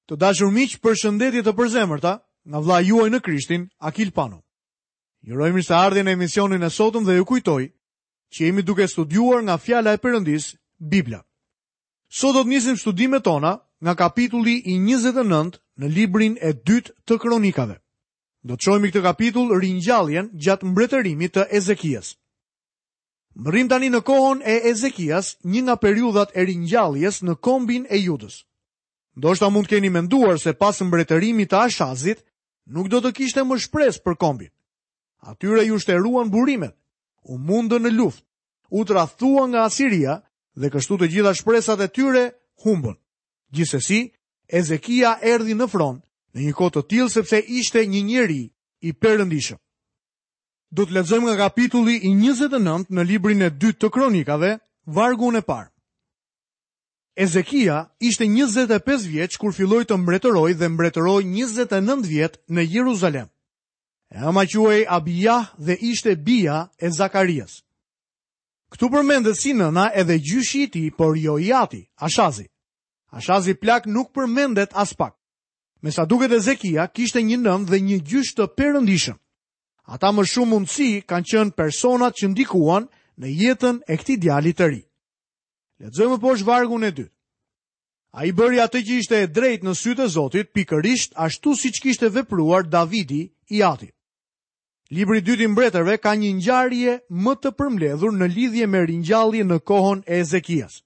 Të dashur miq, përshëndetje të përzemërta nga vëllai juaj në Krishtin, Akil Pano. Ju uroj mirëseardhje në emisionin e sotëm dhe ju kujtoj që jemi duke studiuar nga fjala e Perëndisë, Bibla. Sot do të nisim studimet tona nga kapitulli i 29 në librin e dytë të Kronikave. Do të shohim këtë kapitull ringjalljen gjatë mbretërimit të Ezekias. Mbërrijmë tani në kohën e Ezekias, një nga periudhat e ringjalljes në kombin e Judës. Ndoshta mund të keni menduar se pas mbretërimit të Ashazit, nuk do të kishte më shpresë për kombin. Atyre iu shteruan burimet, u mundën në luftë, u tradhtuan nga Asiria dhe kështu të gjitha shpresat e tyre humbën. Gjithsesi, Ezekia erdhi në fron në një kohë të tillë sepse ishte një njeri i perëndishëm. Do të lexojmë nga kapitulli i 29 në librin e dytë të Kronikave, vargun e parë. Ezekia ishte 25 vjeç kur filloi të mbretërojë dhe mbretëroi 29 vjet në Jeruzalem. E ëma quhej Abijah dhe ishte bija e Zakarias. Këtu përmendet si nëna edhe gjyshi i tij, por jo i ati, Ashazi. Ashazi plak nuk përmendet aspak. Me sa duket Ezekia kishte një nënë dhe një gjysh të perëndishëm. Ata me shumë mundësi kanë qenë personat që ndikuan në jetën e këtij djali të ri. Lexojmë poshtë vargun e dytë. Ai bëri atë që ishte e drejtë në sytë e Zotit, pikërisht ashtu siç kishte vepruar Davidi i ati. Libri i dytë i mbretërve ka një ngjarje më të përmbledhur në lidhje me ringjalljen në kohën e Ezekias.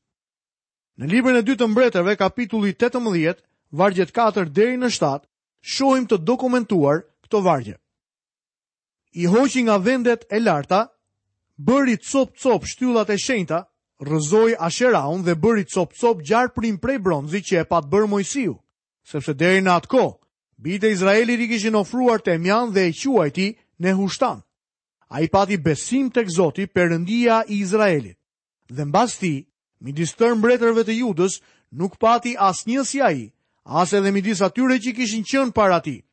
Në librin e dytë të mbretërve, kapitulli 18, vargjet 4 deri në 7, shohim të dokumentuar këto vargje. I hoqi nga vendet e larta, bëri copë-copë shtyllat e shenjta, rrëzoi Asheraun dhe bëri copë-copë gjarprin prej bronzi që e pat bërë Moisiu, sepse deri në atë kohë, bijtë e Izraelit i kishin ofruar temjan dhe e quajti Nehushtan. Ai pati besim tek Zoti, Perëndia i Izraelit. Dhe mbas tij, midis tërë mbretërve të Judës, nuk pati asnjë si ai, as edhe midis atyre që kishin qenë para tij.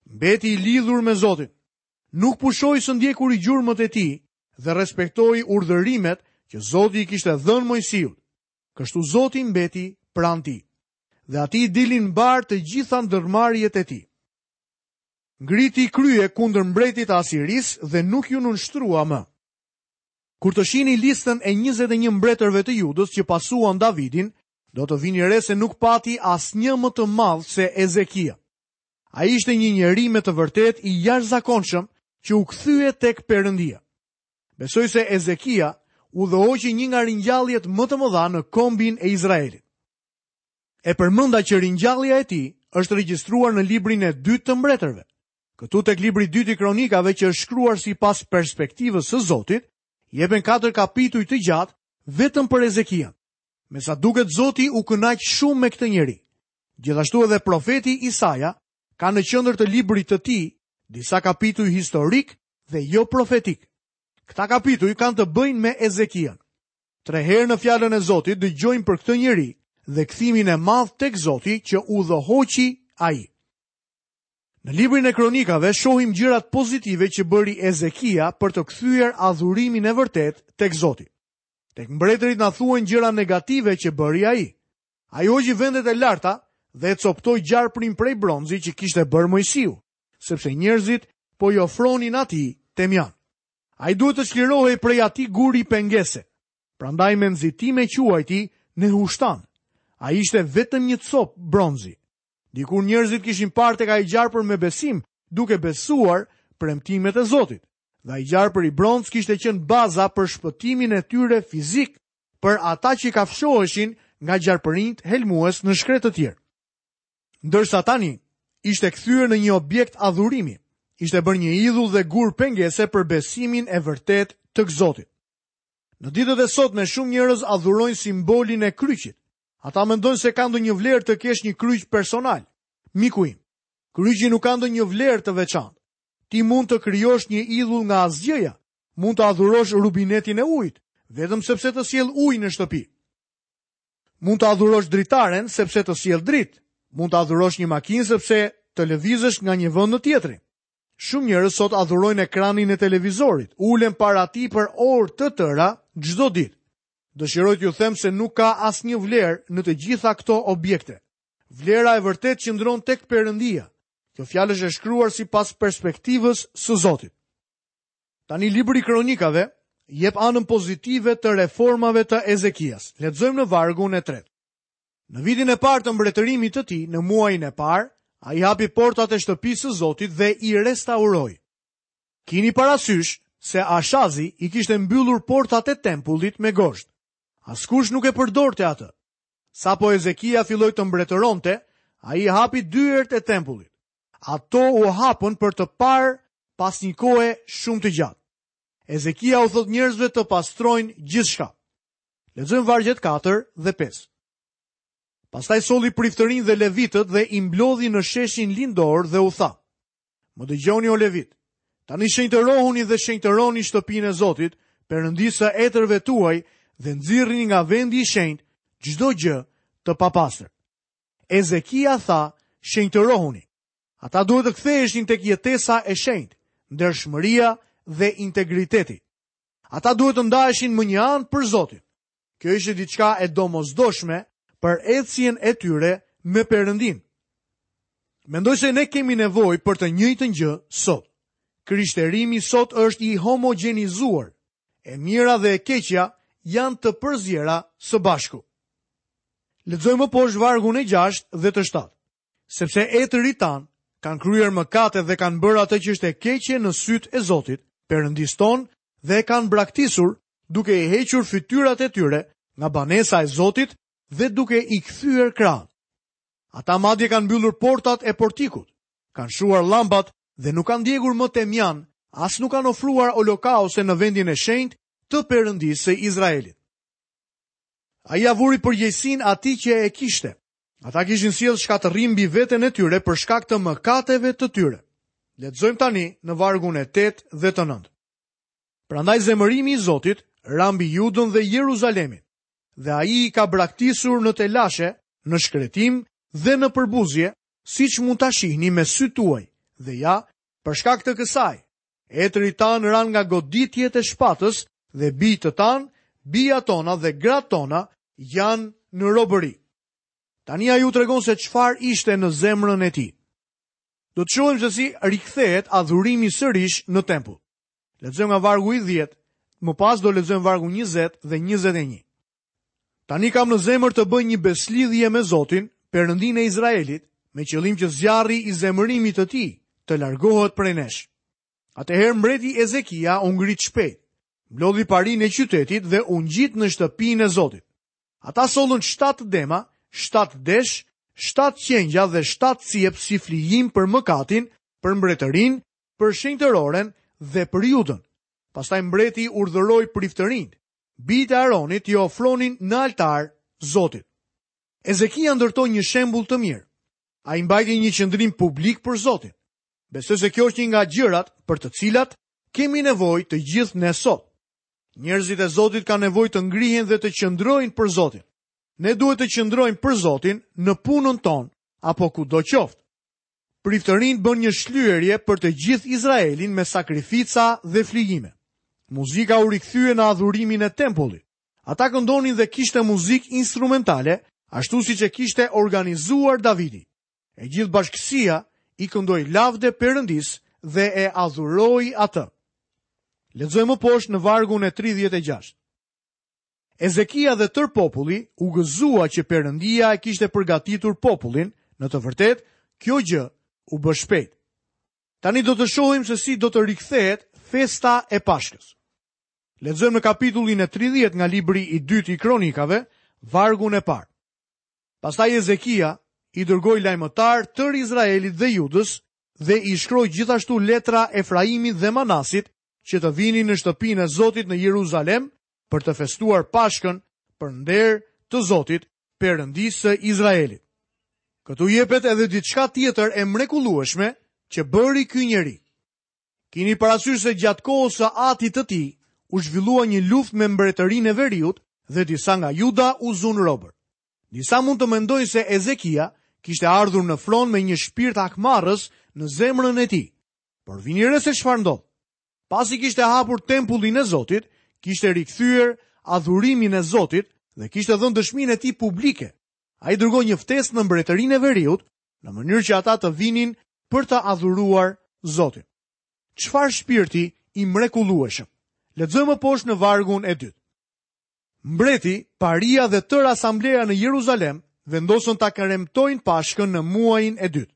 Mbeti i lidhur me Zotin. Nuk pushoi së ndjekuri gjurmët e tij dhe respektoi urdhërimet që Zoti i kishte dhënë Moisiut. Kështu Zoti mbeti pranë tij. Dhe atij i dilnin mbarë të gjitha ndërmarrjet e tij. Ngriti krye kundër mbretit të Asirisë dhe nuk iu nënshtrua më. Kur të shihni listën e 21 mbretërve të Judës që pasuan Davidin, do të vini re se nuk pati asnjë më të madh se Ezekia. Ai ishte një njeri me të vërtetë i jashtëzakonshëm që u kthye tek Perëndia. Besoj se Ezekia udhëhoqi një nga ringjalljet më të mëdha në kombin e Izraelit. E përmenda që ringjallja e tij është regjistruar në librin e dytë të mbretërve. Këtu tek libri i dytë i kronikave që është shkruar sipas perspektivës së Zotit, jepen katër kapituj të gjatë vetëm për Ezekian. Me sa duket Zoti u kënaq shumë me këtë njeri. Gjithashtu edhe profeti Isaja ka në qendër të librit të tij disa kapituj historikë dhe jo profetikë. Këta kapituj kanë të bëjnë me Ezekian. Tre herë në fjalën e Zotit dëgjojmë për këtë njeri dhe kthimin e madh tek Zoti që udhëhoqi ai. Në librin e kronikave shohim gjërat pozitive që bëri Ezekia për të kthyer adhurimin e vërtetë tek Zoti. Tek mbretërit na thuhen gjëra negative që bëri ai. Ai hoqi vendet e larta dhe e copëtoi gjarprin prej bronzi që kishte bërë Moisiu, sepse njerëzit po i ofronin atij temjan. Ai duhet të çlirohej prej atij guri pengese. Prandaj me nxitim e quajti Nehushtan. Ai ishte vetëm një copë bronzi. Dikur njerëzit kishin parë tek ai gjarpër me besim, duke besuar premtimet e Zotit. Dhe ai gjarpër i bronztë kishte qenë baza për shpëtimin e tyre fizik, për ata që kafshoheshin nga gjarpërinjtë helmues në shkretëtirë. Ndërsa tani ishte kthyer në një objekt adhurimi, ishte bërë një idhull dhe gur pengese për besimin e vërtetë tek Zoti. Në ditët e sotme shumë njerëz adhurojnë simbolin e kryqit. Ata mendojnë se ka ndonjë vlerë të kesh një kryq personal. Miku im, kryqi nuk ka ndonjë vlerë të veçantë. Ti mund të krijosh një idhull nga asgjëja, Mund të adhurosh rubinetin e ujit, vetëm sepse të sjell ujë në shtëpi. Mund të adhurosh dritaren sepse të sjell dritë. Mund të adhurosh një makinë sepse të lëvizësh nga një vend në tjetrin. Shumë njerëz sot adhurojnë ekranin e televizorit, ulen para tij për orë të tëra çdo ditë. Dëshiroj t'ju them se nuk ka asnjë vlerë në të gjitha këto objekte. Vlera e vërtetë qëndron tek Perëndia. Kjo fjalë është e shkruar sipas perspektivës së Zotit. Tani libri i Kronikave jep anën pozitive të reformave të Ezekias. Lexojmë në vargun e tretë. Në vitin e parë të mbretërimit të tij, në muajin e parë, ai hapi portat e shtëpisë së Zotit dhe i restauroi. Kini parasysh se Ashazi i kishte mbyllur portat e tempullit me gozhdë. Askush nuk e përdorte atë. Sapo Ezekia filloi të mbretëronte, ai hapi dyert e tempullit. Ato u hapën për të parë pas një kohe shumë të gjatë. Ezekia u thotë njerëzve të pastrojnë gjithçka. Lexojmë vargjet 4 dhe 5. Pastaj solli priftërinjtë dhe levitët dhe i mblodhi në sheshin lindor dhe u tha: Më dëgjoni o levitë. Tani shenjtërohuni dhe shenjtëroni shtëpinë e Zotit, Perëndisë së etërve tuaj dhe nxirrni nga vendi i shenjtë çdo gjë të papastër. Ezekia tha, shenjtërohuni. Ata duhet të ktheheshin tek jetesa e shenjtë, ndershmëria dhe integriteti. Ata duhet të ndaheshin më një anë për Zotin. Kjo ishte diçka e domosdoshme për ecjen e tyre me Perëndinë. Mendoj se ne kemi nevojë për të njëjtën gjë sot. Krishterimi sot është i homogjenizuar. E mira dhe e keqja janë të përziera së bashku. Lexojmë më poshtë vargun e 6 dhe të 7. Sepse etërit tanë kanë kryer mëkate dhe kanë bërë atë që është e keqe në sytë e Zotit, Perëndisë tonë, dhe e kanë braktisur duke i hequr fytyrat e tyre nga banesa e Zotit dhe duke i kthyer krahun. Ata madje kanë mbyllur portat e portikut, kanë shuar llambat dhe nuk kanë djegur më temjan, as nuk kanë ofruar holokauste në vendin e shenjtë të Perëndisë së Izraelit. Ai ia vuri përgjegjësinë atij që e kishte. Ata kishin sjellë shkatërrim mbi veten e tyre për shkak të mëkateve të tyre. Lexojmë tani në vargun e 8 dhe të 9. Prandaj zemërimi i Zotit ra mbi Judën dhe Jeruzalemin, dhe ai i ka braktisur në telashe, në shkretim dhe në përbuzje, siç mund ta shihni me sytë tuaj. Dhe ja, për shkak të kësaj, etërit tanë ranë nga goditjet e shpatës dhe bijtë tanë, bijat tona dhe gratë tona janë në robëri. Tani ai u tregon se çfarë ishte në zemrën e tij. Do të shohim se si rikthehet adhurimi sërish në tempull. Lexojmë nga vargu i 10, më pas do lexojmë vargun 20 dhe 21. Tani kam në zemër të bëj një besëlidhje me Zotin, Perëndinë e Izraelit, me qëllim që zjarri i zemërimit të tij të largohet prej nesh. Atëherë mbreti Ezekia u ngrit shpejt, mblodhi parinë e qytetit dhe u ngjit në shtëpinë e Zotit. Ata sollën shtatë dema, shtatë desh, shtatë qengja dhe shtatë cjep si flijim për mëkatin, për mbretërinë, për shenjtëroren dhe për Judën. Pastaj mbreti urdhëroi priftërinjtë, bijtë e Aronit t'i ofronin në altar Zotit. Ezekia ndërtoi një shembull të mirë. Ai mbajti një qëndrim publik për Zotin. Besoj se kjo është një nga gjërat për të cilat kemi nevojë të gjithë ne sot. Njerëzit e Zotit kanë nevojë të ngrihen dhe të qëndrojnë për Zotin. Ne duhet të qëndrojmë për Zotin në punën tonë apo kudo qoftë. Priftërinjtë bënë një shlyerje për të gjithë Izraelin me sakrifica dhe flijime. Muzika u rikthye në adhurimin e tempullit. Ata këndonin dhe kishte muzikë instrumentale, ashtu siç e kishte organizuar Davidi. E gjithë bashkësia i këndoi lavde Perëndisë dhe e adhuroi atë. Lexojmë më poshtë në vargun e 36. Ezekia dhe tërë populli u gëzua që Perëndia e kishte përgatitur popullin, në të vërtetë, kjo gjë u bë shpejt. Tani do të shohim se si do të rikthehet festa e Pashkës. Lexojmë në kapitullin e 30 nga libri i dytë i Kronikave, vargun e parë. Pastaj Ezekia i dërgoi lajmëtarë tërë Izraelit dhe Judës dhe i shkroi gjithashtu letra Efraimit dhe Manasit që të vinin në shtëpinë e Zotit në Jeruzalem për të festuar Pashkën për nder të Zotit, Perëndisë së Izraelit. Këtu jepet edhe diçka tjetër e mrekullueshme që bëri ky njeri. Kini parasysh se gjatë kohës së atit të tij u zhvillua një luftë me mbretërinë e veriut dhe disa nga Juda u zunë robër. Disa mund të mendojnë se Ezekia kishte ardhur në fron me një shpirt hakmarrës në zemrën e tij. Por vini re se çfarë ndodh. Pasi kishte hapur tempullin e Zotit, kishte rikthyer adhurimin e Zotit dhe kishte dhënë dëshminë e tij publike. Ai dërgoi një ftesë në mbretërinë e veriut, në mënyrë që ata të vinin për të adhuruar Zotin. Çfarë shpirti i mrekullueshëm. Lexojmë më poshtë në vargun e dytë. Mbreti, paria dhe tërë asambleja në Jeruzalem vendosën ta kremtojnë Pashkën në muajin e dytë.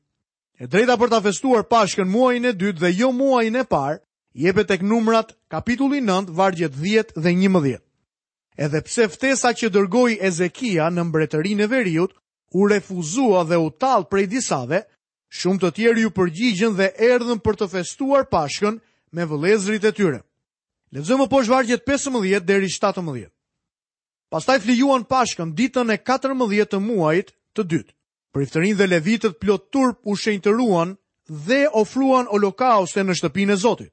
E drejta për ta festuar Pashkën muajin e dytë dhe jo muajin e parë, jepet tek Numrat kapitulli 9, vargjet 10 dhe 11. Edhe pse ftesa që dërgoi Ezekia në mbretërinë e veriut u refuzua dhe u tall prej disave, shumë të tjerë iu përgjigjën dhe erdhën për të festuar Pashkën me vëllezërit e tyre. Lexojmë më poshtë vargjet 15 deri 17. Pastaj flijuan Pashkën ditën e 14 të muajit të dytë. Priftërinjtë dhe levitët plot turp u shenjtëruan dhe ofruan holokauste në shtëpinë e Zotit.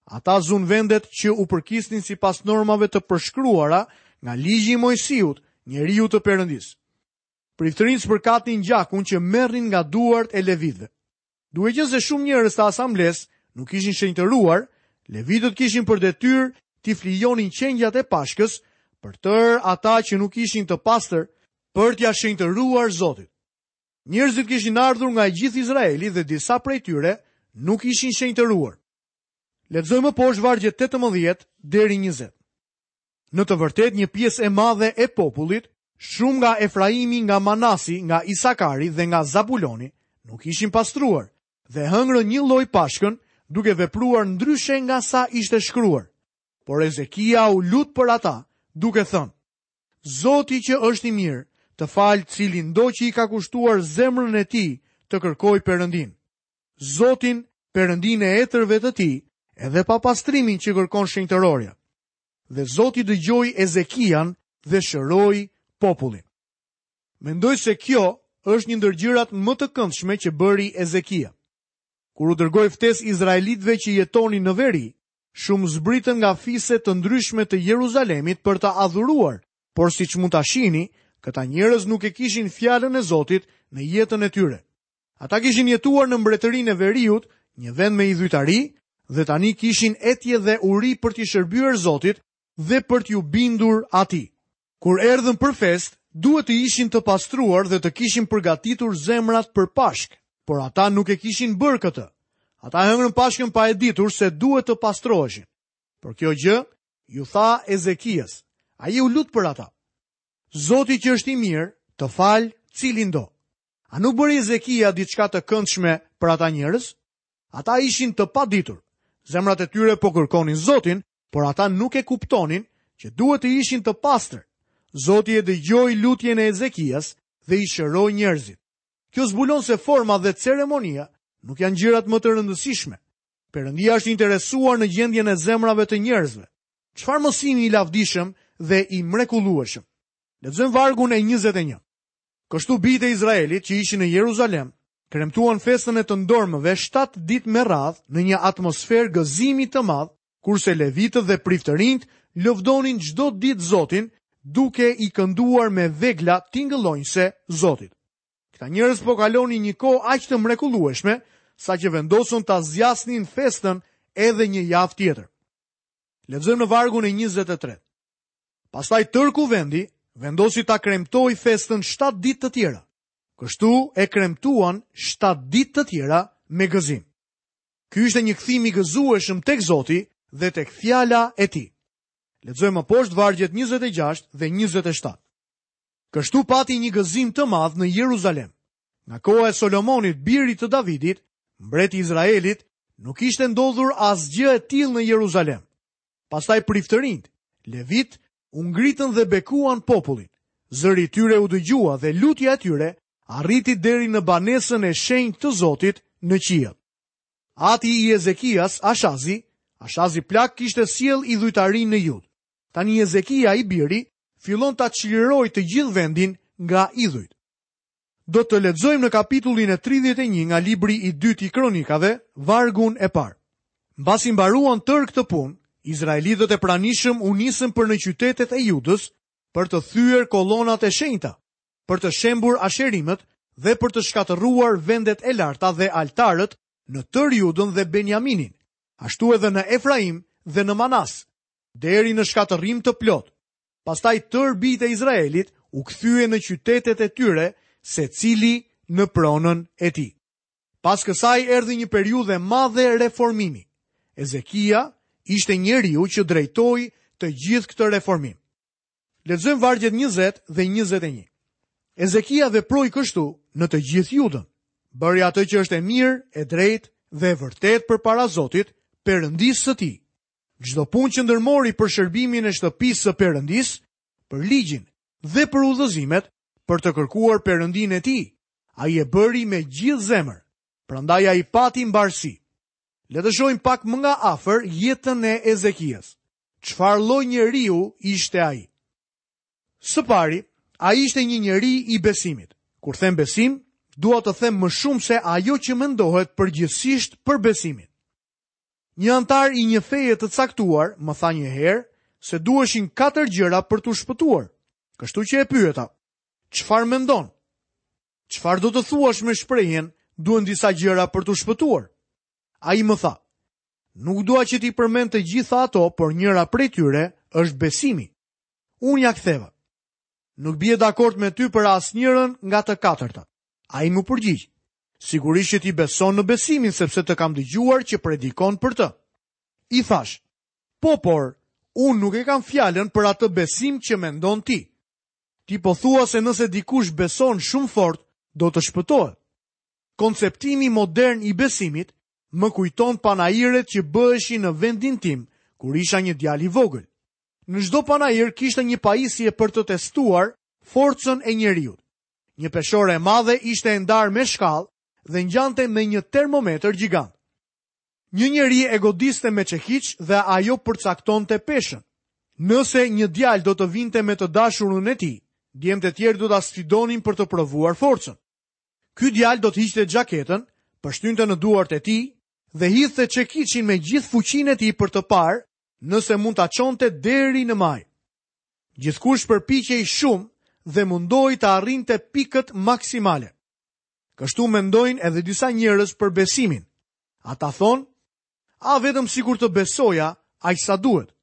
Ata zunë vendet që u përkisnin sipas normave të përshkruara nga ligji i Moisiut, njeriut të Perëndisë. Priftërinjtë spërkatnin gjakun që merrnin nga duart e levitëve. Duke qenë se shumë njerëz të asamblesë nuk ishin shenjtëruar, levitët kishin për detyrë t'i flijonin qengjat e Pashkës për tërë ata që nuk ishin të pastër për t'ia shenjtëruar Zotit. Njerëzit kishin ardhur nga i gjithë Izraeli dhe disa prej tyre nuk ishin shenjtëruar. Lexojmë më poshtë vargjet 18 deri 20. Në të vërtetë një pjesë e madhe e popullit, shumë nga Efraimi, nga Manasi, nga Isakari dhe nga Zabuloni, nuk ishin pastruar dhe hëngrën njëlloj Pashkën, duke vepruar ndryshe nga sa ishte shkruar. Por Ezekia u lut për ata, duke thënë: Zoti që është i mirë, të falë cilindo që i ka kushtuar zemrën e tij të kërkojë Perëndinë. Zotin, Perëndinë e etërve të tij, edhe pa pastrimin që kërkon shenjtërorja. Dhe Zoti dëgjoi Ezekian dhe shëroi popullin. Mendoj se kjo është një ndër gjërat më të këndshme që bëri Ezekia. Kur u dërgoi ftesë izraelitëve që jetonin në veri, shumë zbritën nga fise të ndryshme të Jeruzalemit për të adhuruar, por siç mund ta shihni, këta njerëz nuk e kishin fjalën e Zotit në jetën e tyre. Ata kishin jetuar në mbretërinë e veriut, një vend me idhujtari, dhe tani kishin etje dhe uri për t'i shërbyer Zotit dhe për t'iu bindur atij. Kur erdhën për festë, duhet të ishin të pastruar dhe të kishin përgatitur zemrat për Pashkë, por ata nuk e kishin bërë këtë. Ata hëngrën Pashkën pa e ditur se duhet të pastroheshin. Por kjo gjë iu tha Ezekias. Ai u lut për ata. Zoti që është i mirë, të falë cilindo. A nuk bëri Ezekia diçka të këndshme për ata njerëz? Ata ishin të paditur. Zemrat e tyre po kërkonin Zotin, por ata nuk e kuptonin që duhet të ishin të pastër. Zoti e dëgjoi lutjen e Ezekias dhe i shëroi njerëzit. Kjo zbulon se forma dhe ceremonia nuk janë gjërat më të rëndësishme. Perëndia është i interesuar në gjendjen e zemrave të njerëzve. Çfarë mësimi i lavdishëm dhe i mrekullueshëm. Lexojmë vargun e 21. Kështu bijtë e Izraelit që ishin në Jeruzalem, kremtuan festën e të ndormëve 7 ditë me radhë në një atmosferë gëzimi të madh, kurse levitët dhe priftërinjtë lëvdonin çdo ditë Zotin, duke i kënduar me vegla tingëllonjëse Zotit. Këta njerëz po kalonin një kohë aq të mrekullueshme, saqë vendosën ta zgjasnin festën edhe një javë tjetër. Lexojmë në vargun e 23. Pastaj tërë kuvendi vendosi ta kremtojë festën 7 ditë të tjera. Kështu e kremtuan 7 ditë të tjera me gëzim. Ky ishte një kthim i gëzueshëm tek Zoti dhe tek fjala e tij. Lexojmë më poshtë vargjet 26 dhe 27. Kështu pati një gëzim të madh në Jeruzalem. Nga koha e Solomonit, birit të Davidit, mbret i Izraelit, nuk ishte ndodhur asgjë e tillë në Jeruzalem. Pastaj priftërinjtë, levitë, u ngritën dhe bekuan popullin. Zëri i tyre u dëgjua dhe lutja e tyre arriti deri në banesën e shenjtë të Zotit në qiell. Ati i Ezekias, Ashazi, Ashazi plak kishte sjellë idhujtarinë në Judë. Tani Ezekia i biri fillon ta çlirojë të gjithë vendin nga idhujt. Do të lexojmë në kapitullin e 31 nga libri i dytë i Kronikave, vargun e parë. Mbasi mbaruan tërë këtë punë, izraelitët e pranishëm u nisën për në qytetet e Judës për të thyer kolonat e shenjta, për të shembur asherimët dhe për të shkatërruar vendet e larta dhe altarët në tërë Judën dhe Benjaminin, ashtu edhe në Efraim dhe në Manas, deri në shkatërrim të plotë. Pastaj tërë bijtë e Izraelit u kthyen në qytetet e tyre, secili në pronën e tij. Pas kësaj erdhi një periudhë e madhe reformimi. Ezekia ishte njeriu që drejtoi të gjithë këtë reformim. Lexojmë vargjet 20 dhe 21. Ezekia veproi kështu në të gjithë Judën. Bëri atë që është e mirë, e drejtë dhe e vërtetë përpara Zotit, Perëndisë së tij. Çdo punë që ndërmori për shërbimin e shtëpisë së Perëndisë, për ligjin dhe për udhëzimet, për të kërkuar Perëndinë e tij, ai e bëri me gjithë zemër. Prandaj ai pati mbarësi. Le të shohim pak më nga afër jetën e Ezekias. Çfarë lloj njeriu ishte ai? Së pari, ai ishte një njeri i besimit. Kur them besim, dua të them më shumë se ajo që mendohet përgjithësisht për besimin. Një anëtar i një feje të caktuar më tha një herë se duheshin katër gjëra për t'u shpëtuar. Kështu që e pyeta, çfarë mendon? Çfarë do të thuash me shprehjen duhen disa gjëra për t'u shpëtuar? Ai më tha, nuk dua që t'i përmend të gjitha ato, por njëra prej tyre është besimi. Unë ia ktheva. Nuk bie dakord me ty për asnjërën nga të katërtat. Ai m'u përgjigj. Sigurisht që ti beson në besimin sepse të kam dëgjuar që predikon për të. I thashë, po por, unë nuk e kam fjalën për atë besim që mendon ti. Ti po thua se nëse dikush beson shumë fort, do të shpëtohet. Konceptimi modern i besimit më kujton panairet që bëheshin në vendin tim kur isha një djalë i vogël. Në çdo panair kishte një pajisje për të testuar forcën e njeriut. Një peshore e madhe ishte e ndarë me shkallë dhe ngjante me një termometër gjigant. Një njeri e godiste me çekiç dhe ajo përcaktonte peshën. Nëse një djalë do të vinte me të dashurën e tij, djemtë e tjerë do ta sfidonin për të provuar forcën. Ky djalë do të hiqte xhaketën, pështynte në duart e tij dhe hidhte çekiçin me gjithë fuqinë e tij për të parë nëse mund ta çonte deri në majë. Gjithkush përpiqej shumë dhe mundohej të arrinte pikët maksimale. Kështu mendojnë edhe disa njerëz për besimin. Ata thonë, a vetëm sikur të besoja aq sa duhet.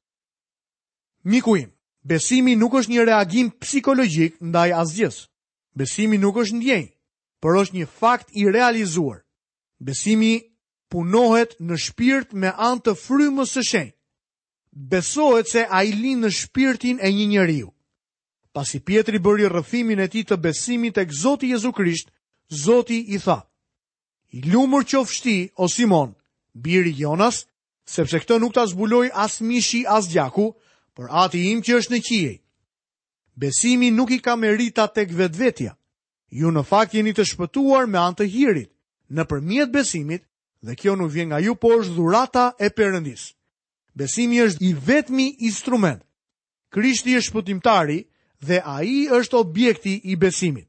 Miku im, besimi nuk është një reagim psikologjik ndaj asgjësë. Besimi nuk është ndjenjë, por është një fakt i realizuar. Besimi punohet në shpirt me anë të frymës së shenjtë. Besohet se ai lind në shpirtin e një njeriu. Pasi Pjetri bëri rrëfimin e tij të besimit tek Zoti Jezu Krisht, Zoti i tha: I lumur qofsh ti, o Simon, biri i Jonas, sepse këtë nuk ta zbuloi as mishi as gjaku, por Ati im që është në qiej. Besimi nuk i ka meritat tek vetvetja. Ju në fakt jeni të shpëtuar me anë të hirit, nëpërmjet besimit, dhe kjo nuk vjen nga ju, por është dhurata e Perëndisë. Besimi është i vetmi instrument. Krishti është shpëtimtari dhe ai është objekti i besimit.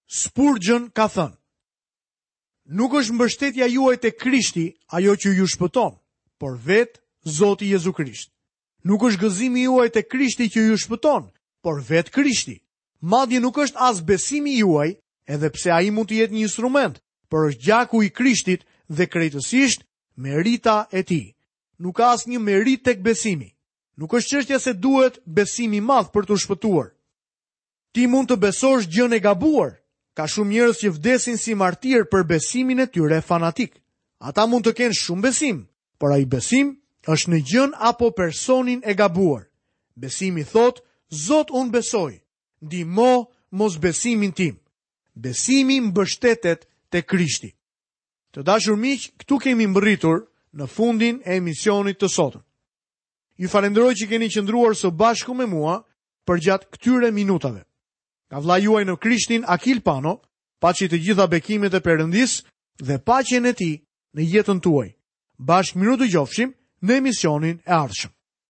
Spurgeon ka thënë: Nuk është mbështetja juaj te Krishti ajo që ju shpëton, por vetë Zoti Jezu Krisht. Nuk është gëzimi juaj te Krishti që ju shpëton, por vetë Krishti. Madje nuk është as besimi juaj, edhe pse ai mund të jetë një instrument, por është gjaku i Krishtit dhe krejtësisht merita e tij. Nuk ka asnjë meritë tek besimi. Nuk është çështja se duhet besim i madh për t'u shpëtuar. Ti mund të besosh gjënë e gabuar. Ka shumë njerëz që vdesin si martirë për besimin e tyre fanatik. Ata mund të kenë shumë besim, por ai besim është në gjënë apo personin e gabuar. Besimi thotë, Zot unë besoj, ndihmo mosbesimin tim. Besimi mbështetet te Krishti. Të dashur miq, këtu kemi mbërritur në fundin e emisionit të sotëm. Ju falenderoj që keni qëndruar së bashku me mua përgjatë këtyre minutave. Nga vëllai juaj në Krishtin Akil Pano, paçi të gjitha bekimet e Perëndisë dhe paqen e tij në jetën tuaj. Bashkë mirudëgjofshim në emisionin e ardhshëm.